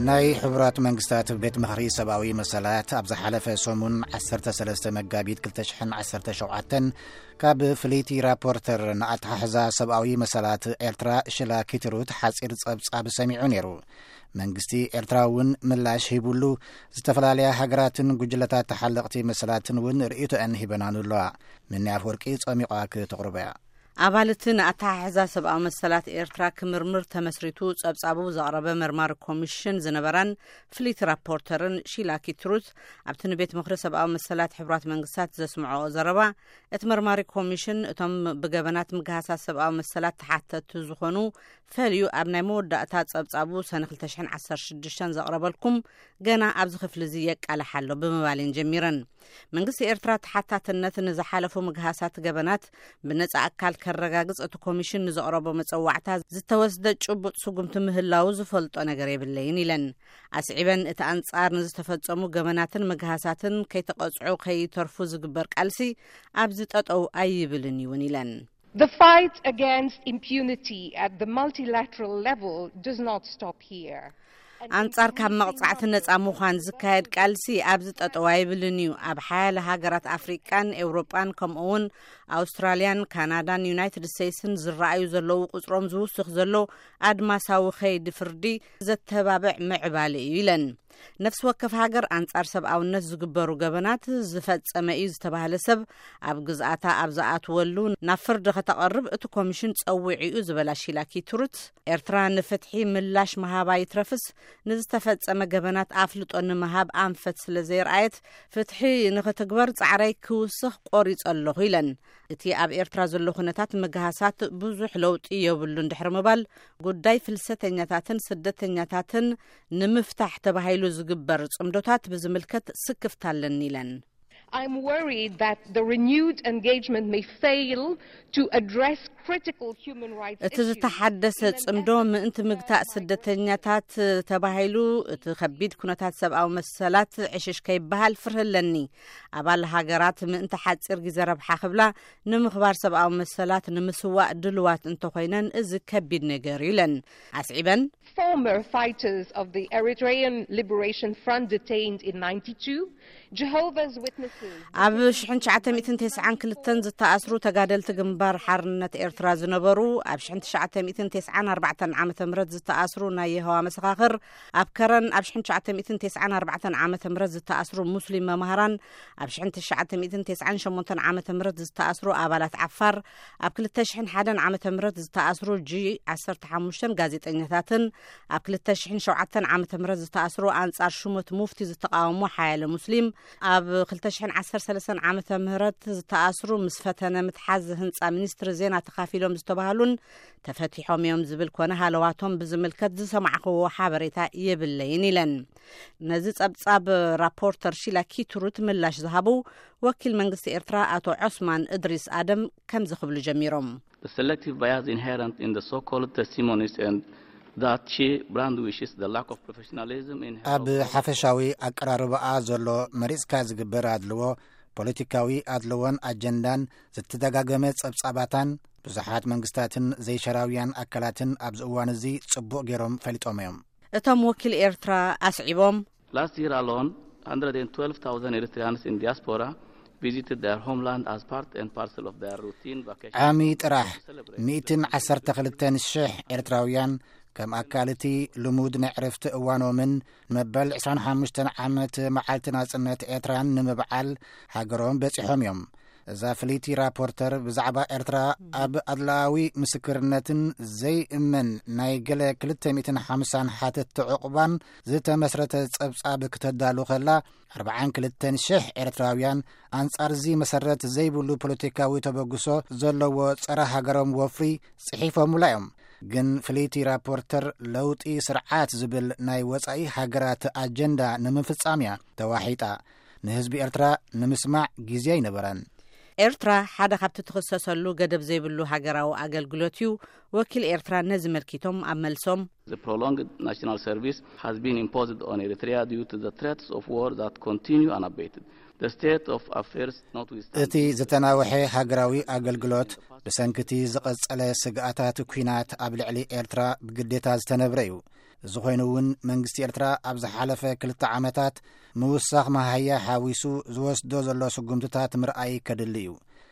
ናይ ሕቡራት መንግስታት ቤት ምኽሪ ሰብኣዊ መሰላት ኣብ ዝሓለፈ ሰሙን ዓሰርተ ሰለስተ መጋቢት ክልተ ሽሕን ዓሰርተ ሸውዓተን ካብ ፍልይቲ ራፖርተር ንኣተሓሕዛ ሰብኣዊ መሰላት ኤርትራ ሽላ ኪትሩት ሓጺር ጸብጻብ ሰሚዑ ነይሩ። መንግስቲ ኤርትራ እውን ምላሽ ሂቡሉ፣ ዝተፈላለያ ሃገራትን ጉጅለታት ተሓለቕቲ መሰላትን እውን ርእይቶአን ሂበናኑ ኣለዋ። ምኒ ኣፍወርቂ ጸሚቋ ክተቕርቦ እያ። ኣባልቲ ንኣተሓሕዛ ሰብኣዊ መሰላት ኤርትራ ክምርምር ተመስሪቱ ጸብጻቡ ዘቕረበ መርማሪ ኮሚሽን ዝነበራን ፍልይቲ ራፖርተርን ሺላ ኪትሩት ኣብቲ ንቤት ምኽሪ ሰብኣዊ መሰላት ሕቡራት መንግስታት ዘስምዖ ዘረባ፣ እቲ መርማሪ ኮሚሽን እቶም ብገበናት ምግሃሳት ሰብኣዊ መሰላት ተሓተቱ ዝኾኑ ፈልዩ ኣብ ናይ መወዳእታ ጸብጻቡ ሰነ ክልተ ሽሕን ዓሰርተ ሽዱሽተን ዘቕረበልኩም ገና ኣብዚ ክፍሊ እዚ የቃልሕ ኣሎ ብምባል እየን ጀሚረን። መንግስቲ ኤርትራ ተሓታትነት ንዝሓለፉ ምግሃሳት ገበናት ብነጻ ኣካል ከረጋግጽ እቲ ኮሚሽን ንዘቕረቦ መጸዋዕታ ዝተወስደ ጭቡጥ ስጉምቲ ምህላዉ ዝፈልጦ ነገር የብለይን ኢለን። ኣስዒበን እቲ ኣንጻር ንዝተፈጸሙ ገበናትን ምግሃሳትን ከይተቐጽዑ ከይተርፉ ዝግበር ቃልሲ ኣብዚ ጠጠው ኣይብልን እውን ኢለን። The fight against impunity at the multilateral level does not stop here. ኣንጻር ካብ መቕጻዕቲ ነጻ ምዃን ዝካየድ ቃልሲ ኣብዚ ጠጠው ኣይብልን እዩ። ኣብ ሓያለ ሃገራት ኣፍሪቃን ኤውሮጳን ከምኡ እውን ኣውስትራልያን ካናዳን ዩናይትድ ስቴትስን ዝረኣዩ ዘለዉ ቁጽሮም ዝውስኽ ዘሎ ኣድማሳዊ ኸይዲ ፍርዲ ዘተባብዕ ምዕባለ እዩ ኢለን። ነፍሲ ወከፍ ሃገር ኣንጻር ሰብኣውነት ዝግበሩ ገበናት ዝፈጸመ እዩ ዝተባህለ ሰብ ኣብ ግዝኣታ ኣብ ዝኣትወሉ ናብ ፍርዲ ከተቐርብ እቲ ኮሚሽን ጸዊዑ እዩ ዝበላ ሺላ ኪትሩት፣ ኤርትራ ንፍትሒ ምላሽ ምሃባ ይትረፍስ ንዝተፈጸመ ገበናት ኣፍልጦ ንምሃብ ኣንፈት ስለ ዘየርኣየት ፍትሒ ንኽትግበር ጻዕረይ ክውስኽ ቆሪጸ ኣለኹ ኢለን። እቲ ኣብ ኤርትራ ዘሎ ኩነታት ምግሃሳት ብዙሕ ለውጢ የብሉን ድሕሪ ምባል፣ ጉዳይ ፍልሰተኛታትን ስደተኛታትን ንምፍታሕ ተባሂሉ ዝግበር ጽምዶታት ብዝምልከት ስክፍታ ኣለኒ ኢለን። I'm worried that the renewed engagement may fail to address critical human rights እቲ issues ዝተሓደሰ in an ጽምዶ effort ምእንቲ to ምግታእ clarify ስደተኛታት ተባሂሉ እቲ ከቢድ ኩነታት ሰብኣዊ መሰላት ዕሽሽ ከይበሃል ፍርህ ኣለኒ። ኣባል ሃገራት ምእንቲ ሓጺር ግዜ ረብሓ ክብላ ንምኽባር ሰብኣዊ መሰላት ንምስዋእ ድልዋት እንተኾይነን እዚ ከቢድ ነገር እዩ ኢለን። ኣስዒበን Former fighters of the Eritrean Liberation Front detained in ninety-two, Jehovah's Witnesses ኣብ ሽሕን ትሽዓተ ሚእትን ተስዓን ክልተን ዝተኣስሩ ተጋደልቲ ግንባር ሓርነት ኤርትራ ዝነበሩ፣ ኣብ ሽሕን ትሽዓተ ሚእትን ተስዓን ኣርባዕተን ዓመተ ምህረት ዝተኣስሩ ናይ የሆዋ መሰኻኽር፣ ኣብ ከረን ኣብ ሽሕን ትሽዓተ ሚእትን ተስዓን ኣርባዕተን ዓመተ ምህረት ዝተኣስሩ ሙስሊም መማህራን፣ ኣብ ሽሕን ትሽዓተ ሚእትን ተስዓን ሸሞንተን ዓመተ ምህረት ዝተኣስሩ ኣባላት ዓፋር፣ ኣብ ክልተ ሽሕን ሓደን ዓመተ ምህረት ዝተኣስሩ ጂ ዓሰርተ ሓሙሽተን ጋዜጠኛታትን፣ ኣብ ክልተ ሽሕን ሸውዓተን ዓመተ ምህረት ዝተኣስሩ ኣንጻር ሹመት ሙፍቲ ዝተቃወሙ ሓያለ ሙስሊም፣ ኣብ ክልተ ሽሕን ዓሰርተ ሰለስተን ዓመተ ምህረት ዝተኣስሩ ምስ ፈተነ ምትሓዝ ህንጻ ሚኒስትሪ ዜና ተኻፊሎም ዝተባህሉን ተፈቲሖም እዮም ዝብል ኮነ ሃለዋቶም ብዝምልከት ዝሰማዕኽዎ ሓበሬታ የብለይን ኢለን። ነዚ ጸብጻብ ራፖርተር ሺላ ኪትሩት ምላሽ ዝሃቡ ወኪል መንግስቲ ኤርትራ ኣቶ ዖስማን እድሪስ ኣደም ከምዚ ክብሉ ጀሚሮም። The selective bias inherent in the so-called testimonies and that she brandishes the lack of professionalism in her ኣብ approach ሓፈሻዊ ኣቀራርባኣ ዘሎ መሪጽካ ዝግበር ኣድልዎ፣ ፖለቲካዊ ኣድልዎን ኣጀንዳን፣ ዝተደጋገመ ጸብጻባታን ብዙሓት መንግስታትን ዘይሸራውያን ኣካላትን ኣብዚ እዋን እዚ ጽቡቕ ገይሮም ፈሊጦም እዮም። እቶም ወኪል ኤርትራ ኣስዒቦም፣ Last year alone, one hundred twelve thousand Eritreans in diaspora visited their homeland as part and parcel of their routine vacation ዓሚ ጥራሕ to celebrate ሚእትን ዓሰርተ ክልተን ሽሕ ኤርትራውያን ከም ኣካል እቲ ልሙድ ናይ ዕረፍቲ እዋኖምን ንመበል ዕስራን ሓሙሽተን ዓመት መዓልቲ ናጽነት ኤርትራን ንምብዓል ሃገሮም በጺሖም እዮም። እዛ ፍልይቲ ራፖርተር ብዛዕባ ኤርትራ ኣብ ኣድላዊ ምስክርነትን ዘይእመን ናይ ገለ ክልተ ሚእትን ሓምሳን ሓተትቲ ዕቑባን ዝተመስረተ ጸብጻብ ክተዳሉ ከላ፣ ኣርባዓን ክልተን ሽሕ ኤርትራውያን ኣንጻር እዚ መሰረት ዘይብሉ ፖለቲካዊ ተበግሶ ዘለዎ ጸረ ሃገሮም ወፍሪ ጽሒፎምላ እዮም። ግን ፍልይቲ ራፖርተር ለውጢ ስርዓት ዝብል ናይ ወጻኢ ሃገራት ኣጀንዳ ንምፍጻም እያ ተዋሒጣ። ንህዝቢ ኤርትራ ንምስማዕ ግዜ ኣይነበረን። ኤርትራ ሓደ ካብቲ ትኽሰሰሉ ገደብ ዘይብሉ ሃገራዊ ኣገልግሎት እዩ። ወኪል ኤርትራ ነዚ መልኪቶም ኣብ መልሶም፣ The prolonged national service has been imposed on Eritrea due to the threats of war that continue unabated. The state of affairs notwithstanding እቲ ዝተናወሐ ሃገራዊ ኣገልግሎት፣ ብሰንክቲ ዝቐጸለ ስግኣታት ኲናት ኣብ ልዕሊ ኤርትራ ብግዴታ ዝተነብረ እዩ። እዚ ኮይኑ እውን መንግስቲ ኤርትራ ኣብ ዝሓለፈ ክልተ ዓመታት ምውሳኽ መሃያ ሓዊሱ ዝወስዶ ዘሎ ስጉምትታት ምርኣይ ከድሊ እዩ።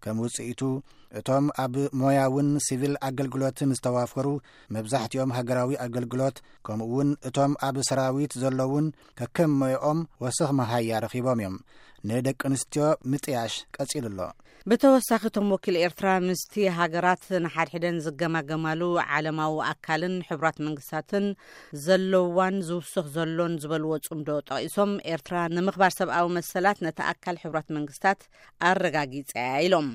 ከም ውጽኢቱ፣ እቶም ኣብ ሞያውን ሲቪል ኣገልግሎትን ዝተዋፈሩ፣ መብዛሕትኦም ሃገራዊ ኣገልግሎት፣ ከምኡ እውን እቶም ኣብ ሰራዊት ዘለውን ከከም ሞያኦም ወሰኽ መሃያ ረኺቦም እዮም። ንደቂ ኣንስትዮ ምጥያሽ ቀጺሉ ኣሎ። ብተወሳኺ፣ እቶም ወኪል ኤርትራ ምስቲ ሃገራት ንሓድሕደን ዝገማገማሉ ዓለማዊ ኣካልን ሕቡራት መንግስታትን ዘለዋን ዝውስኽ ዘሎን ዝበልዎ ጽምዶ ጠቒሶም፣ ኤርትራ ንምኽባር ሰብኣዊ መሰላት ነቲ ኣካል ሕቡራት መንግስታት ኣረጋጊጸ እያ ኢሎም።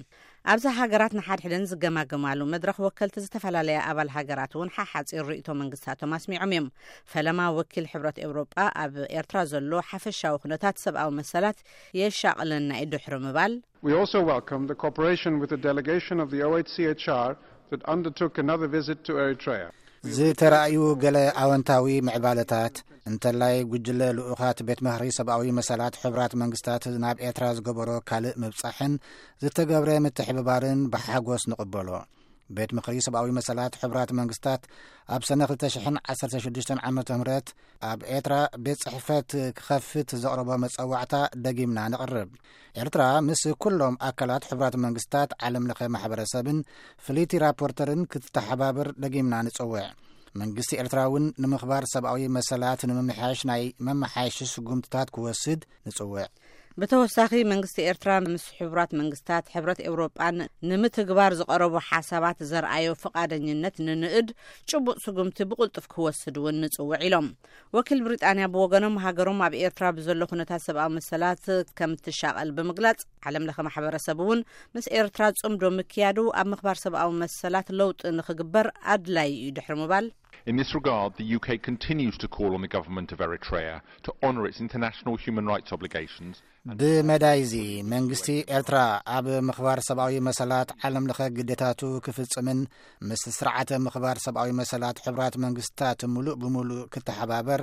ኣብዛ ሃገራት ንሓድሕደን ዝገማገማሉ መድረኽ፣ ወከልቲ ዝተፈላለያ ኣባል ሃገራት እውን ሓሓጺር ርእይቶ መንግስታቶም ኣስሚዖም እዮም። ፈለማ፣ ወኪል ሕብረት ኤውሮጳ ኣብ ኤርትራ ዘሎ ሓፈሻዊ ኩነታት ሰብኣዊ መሰላት የሻቕለና እዩ ድሕሪ ምባል፣ We also welcome the cooperation with the delegation of the O H C H R that undertook another visit to Eritrea. ዝተራእዩ ገለ ኣወንታዊ ምዕባለታት፣ እንተላይ ጉጅለ ልኡኻት ቤት ምኽሪ ሰብኣዊ መሰላት ሕቡራት መንግስታት ናብ ኤርትራ ዝገበሮ ካልእ ምብጻሕን ዝተገብረ ምትሕብባርን ብሓጎስ ንቕበሎ። ቤት ምኽሪ ሰብኣዊ መሰላት ሕቡራት መንግስታት ኣብ ሰነ ክልተ ሽሕን ዓሰርተ ሽዱሽተን ዓመተ ምህረት ኣብ ኤርትራ ቤት ጽሕፈት ክኸፍት ዘቕረቦ መጸዋዕታ ደጊምና ነቕርብ። ኤርትራ ምስ ኩሎም ኣካላት ሕቡራት መንግስታት፣ ዓለም ለኸ ማሕበረሰብን ፍልይቲ ራፖርተርን ክትተሓባበር ደጊምና ንጽውዕ። መንግስቲ ኤርትራ እውን ንምኽባር ሰብኣዊ መሰላት ንምምሕያሽ ናይ መመሓየሺ ስጉምትታት ክወስድ ንጽውዕ። ብተወሳኺ፣ መንግስቲ ኤርትራ ምስ ሕቡራት መንግስታት፣ ሕብረት ኤውሮጳን ንምትግባር ዝቐረቡ ሓሳባት ዘርኣዮ ፍቓደኝነት ንንእድ፣ ጭቡጥ ስጉምቲ ብቕልጡፍ ክወስድ እውን ንጽውዕ ኢሎም። ወኪል ብሪጣንያ ብወገኖም፣ ሃገሮም ኣብ ኤርትራ ብዘሎ ኩነታት ሰብኣዊ መሰላት ከም ትሻቐል ብምግላጽ፣ ዓለም ለኸ ማሕበረሰብ እውን ምስ ኤርትራ ጽምዶ ምክያዱ ኣብ ምኽባር ሰብኣዊ መሰላት ለውጢ ንኽግበር ኣድላዪ እዩ ድሕሪ ምባል፣ In this regard, the U K continues to call on the government of Eritrea to honour its international human rights obligations. ብመዳይዚ፣ መንግስቲ ኤርትራ ኣብ ምኽባር ሰብኣዊ መሰላት ዓለም ለኸ ግዴታቱ ክፍጽምን ምስ ስርዓተ ምኽባር ሰብኣዊ መሰላት ሕቡራት መንግስታት ምሉእ ብምሉእ ክተሓባበር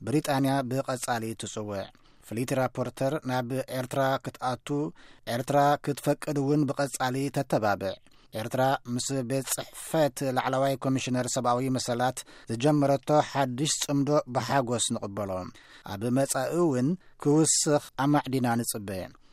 ብሪጣንያ ብቐጻሊ ትጽውዕ። ፍልይቲ ራፖርተር ናብ ኤርትራ ክትኣቱ፣ ኤርትራ ክትፈቅድ እውን ብቐጻሊ ተተባብዕ። ኤርትራ ምስ ቤት ጽሕፈት ላዕለዋይ ኮሚሽነር ሰብኣዊ መሰላት ዝጀመረቶ ሓድሽ ጽምዶ ብሓጎስ ንቕበሎ። ኣብ መጻኢ እውን ክውስኽ ኣማዕዲና ንጽበ።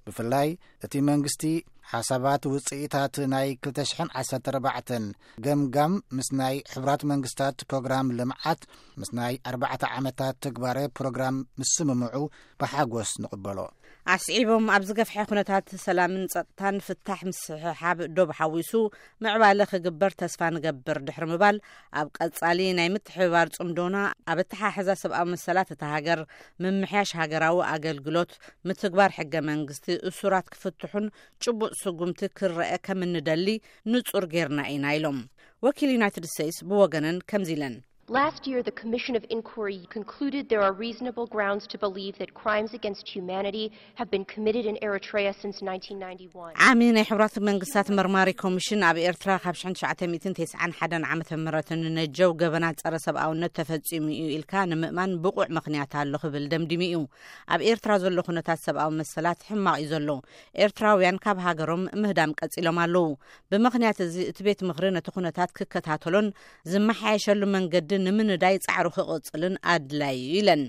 ብፍላይ፣ እቲ መንግስቲ ሓሳባት ውጽኢታት ናይ ክልተ ሽሕን ዓሰርተ ኣርባዕተን ገምጋም ምስ ናይ ሕቡራት መንግስታት ፕሮግራም ልምዓት፣ ምስ ናይ ኣርባዕተ ዓመታት ትግባረ ፕሮግራም ምስምምዑ ብሓጎስ ንቕበሎ። ኣስዒቦም፣ ኣብ ዝገፍሐ ኩነታት ሰላምን ጸጥታን ፍታሕ ምስሕሓብ ዶብ ሓዊሱ ምዕባለ ክግበር ተስፋ ንገብር ድሕሪ ምባል፣ ኣብ ቀጻሊ ናይ ምትሕብባር ጽምዶና ኣብ ኣተሓሕዛ ሰብኣዊ መሰላት እታ ሃገር፣ ምምሕያሽ ሃገራዊ ኣገልግሎት፣ ምትግባር ሕገ መንግስቲ፣ እሱራት ክፍትሑን ጭቡጥ ስጉምቲ ክረአ ከም እንደሊ ንጹር ጌርና ኢና ኢሎም። ወኪል ዩናይትድ ስቴትስ ብወገነን ከምዚ ኢለን፣ Last year, the Commission of Inquiry concluded there are reasonable grounds to believe that crimes against humanity have been committed in Eritrea since nineteen ninety-one. ዓሚ ናይ ሕቡራት መንግስታት መርማሪ ኮሚሽን ኣብ ኤርትራ ካብ ሽሕን ትሽዓተ ሚእትን ተስዓን ሓደን ዓመተ ምህረት ንነጀው ገበናት ጸረ ሰብኣውነት ተፈጺሙ እዩ ኢልካ ንምእማን ብቑዕ ምኽንያት ኣሎ ክብል ደምዲሙ እዩ። ኣብ ኤርትራ ዘሎ ኩነታት ሰብኣዊ መሰላት ሕማቕ እዩ ዘሎ። ኤርትራውያን ካብ ሃገሮም ምህዳም ቀጺሎም ኣለዉ። ብምኽንያት እዚ፣ እቲ ቤት ምኽሪ ነቲ ኩነታት ክከታተሎን ዝመሓየሸሉ መንገዲ ንምንዳይ ጻዕሩ ክቕጽልን ኣድላዪ እዩ ኢለን።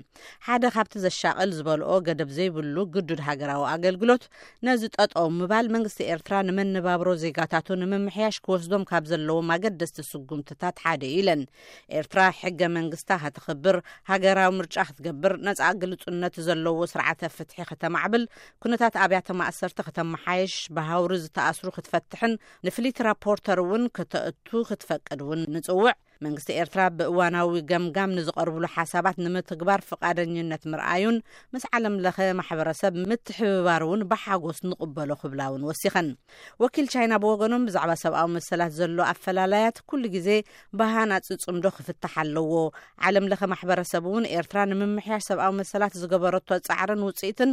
ሓደ ካብቲ ዘሻቕል ዝበልኦ፣ ገደብ ዘይብሉ ግዱድ ሃገራዊ ኣገልግሎት ነዚ ጠጠው ምባል፣ መንግስቲ ኤርትራ ንመነባብሮ ዜጋታቱ ንምምሕያሽ ክወስዶም ካብ ዘለዎም ኣገደስቲ ስጉምትታት ሓደ እዩ ኢለን። ኤርትራ ሕገ መንግስታ ከተኽብር፣ ሃገራዊ ምርጫ ክትገብር፣ ነጻ ግልጹነት ዘለዎ ስርዓተ ፍትሒ ከተማዕብል፣ ኩነታት ኣብያተ ማእሰርቲ ከተመሓየሽ፣ ብሃውሪ ዝተኣስሩ ክትፈትሕን ንፍሊት ራፖርተር እውን ከተእቱ ክትፈቅድ እውን ንጽውዕ። መንግስቲ ኤርትራ ብእዋናዊ ገምጋም ንዝቐርብሉ ሓሳባት ንምትግባር ፍቓደኝነት ምርኣዩን ምስ ዓለም ለኸ ማሕበረሰብ ምትሕብባር እውን ብሓጎስ ንቕበሎ ክብላ እውን ወሲኸን። ወኪል ቻይና ብወገኖም፣ ብዛዕባ ሰብኣዊ መሰላት ዘሎ ኣፈላላያት ኩሉ ግዜ ብሃናጺ ጽምዶ ክፍታሕ ኣለዎ። ዓለም ለኸ ማሕበረሰብ እውን ኤርትራ ንምምሕያሽ ሰብኣዊ መሰላት ዝገበረቶ ጻዕርን ውጽኢትን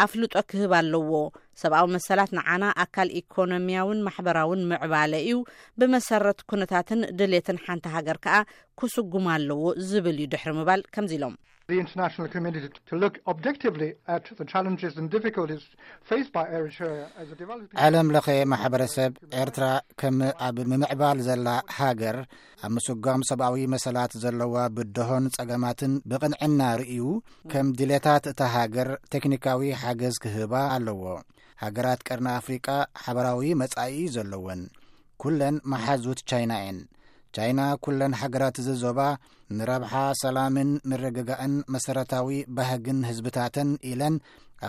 ኣፍልጦ ክህብ ኣለዎ። ሰብኣዊ መሰላት ንዓና ኣካል ኢኮኖሚያውን ማሕበራውን ምዕባለ እዩ። ብመሰረት ኩነታትን ድሌትን ሓንቲ ሃገር ከኣ ክስጉም ኣለዎ ዝብል እዩ ድሕሪ ምባል ከምዚ ኢሎም። the international community to look objectively at the challenges and difficulties faced by Eritrea as a developing ዓለም ለኸ ማሕበረሰብ ኤርትራ ከም ኣብ ምምዕባል ዘላ ሃገር ኣብ ምስጓም ሰብኣዊ መሰላት ዘለዋ ብድሆን ጸገማትን ብቕንዕና ርእዩ ከም ድሌታት እታ ሃገር ቴክኒካዊ ሓገዝ ክህባ ኣለዎ። ሃገራት ቀርኒ ኣፍሪቃ ሓበራዊ መጻኢ ዘለወን ኩለን መሓዙት ቻይና እየን። ቻይና ኩለን ሃገራት እዚ ዞባ ንረብሓ ሰላምን ምርግጋእን መሰረታዊ ባህግን ህዝብታተን ኢለን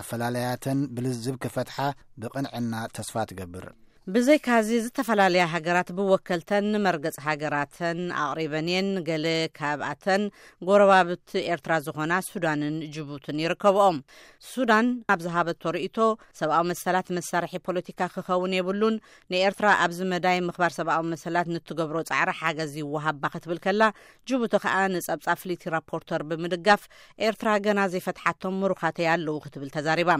ኣፈላለያተን ብልዝብ ክፈትሓ ብቕንዕና ተስፋ ትገብር። ብዘይካዚ ዝተፈላለያ ሃገራት ብወከልተን ንመርገጽ ሃገራተን ኣቕሪበን እየን። ገለ ካብኣተን ጎረባብቲ ኤርትራ ዝኾና ሱዳንን ጅቡትን ይርከብኦም። ሱዳን ኣብ ዝሃበቶ ርእይቶ ሰብኣዊ መሰላት መሳርሒ ፖለቲካ ክኸውን የብሉን፣ ንኤርትራ ኣብዚ መዳይ ምኽባር ሰብኣዊ መሰላት ንትገብሮ ጻዕሪ ሓገዝ ይወሃባ ክትብል ከላ፣ ጅቡቲ ከኣ ንጸብጻብ ፍሊቲ ራፖርተር ብምድጋፍ ኤርትራ ገና ዘይፈትሓቶም ምሩኻተይ ኣለዉ ክትብል ተዛሪባ።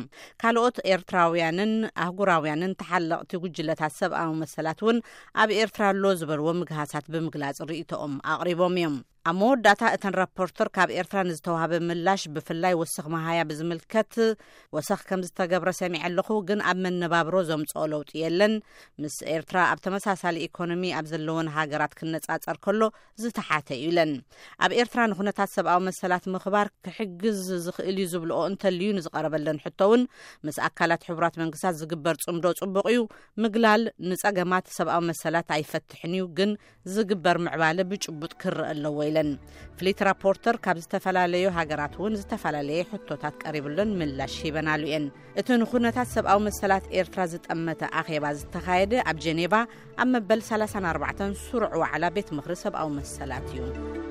ካልኦት ኤርትራውያንን ኣህጉራውያንን ተሓለቕቲ ጉጅለታት ሰብኣዊ መሰላት እውን ኣብ ኤርትራ ኣሎ ዝበልዎ ምግሃሳት ብምግላጽ ርእይቶኦም ኣቕሪቦም እዮም። ኣብ መወዳእታ እተን ራፖርተር ካብ ኤርትራ ንዝተዋህበ ምላሽ ብፍላይ ወሰኽ መሃያ ብዝምልከት ወሰኽ ከም ዝተገብረ ሰሚዐ ኣለኹ፣ ግን ኣብ መነባብሮ ዘምጽኦ ለውጢ የለን። ምስ ኤርትራ ኣብ ተመሳሳሊ ኢኮኖሚ ኣብ ዘለወን ሃገራት ክነጻጸር ከሎ ዝተሓተ እዩ ኢለን። ኣብ ኤርትራ ንኩነታት ሰብኣዊ መሰላት ምኽባር ክሕግዝ ዝኽእል እዩ ዝብልኦ እንተልዩ ንዝቐረበለን ሕቶ እውን ምስ ኣካላት ሕቡራት መንግስታት ዝግበር ጽምዶ ጽቡቕ እዩ። ምግላል ንጸገማት ሰብኣዊ መሰላት ኣይፈትሕን እዩ፣ ግን ዝግበር ምዕባለ ብጭቡጥ ክረአ ኣለዎ ኢለን። ፍሊት ራፖርተር ካብ ዝተፈላለዩ ሃገራት እውን ዝተፈላለየ ሕቶታት ቀሪብለን ምላሽ ሂበናሉ እየን። እቲ ንኩነታት ሰብኣዊ መሰላት ኤርትራ ዝጠመተ ኣኼባ ዝተኻየደ ኣብ ጀኔቫ ኣብ መበል ሰላሳን ኣርባዕተን ስሩዕ ዋዕላ ቤት ምኽሪ ሰብኣዊ መሰላት እዩ።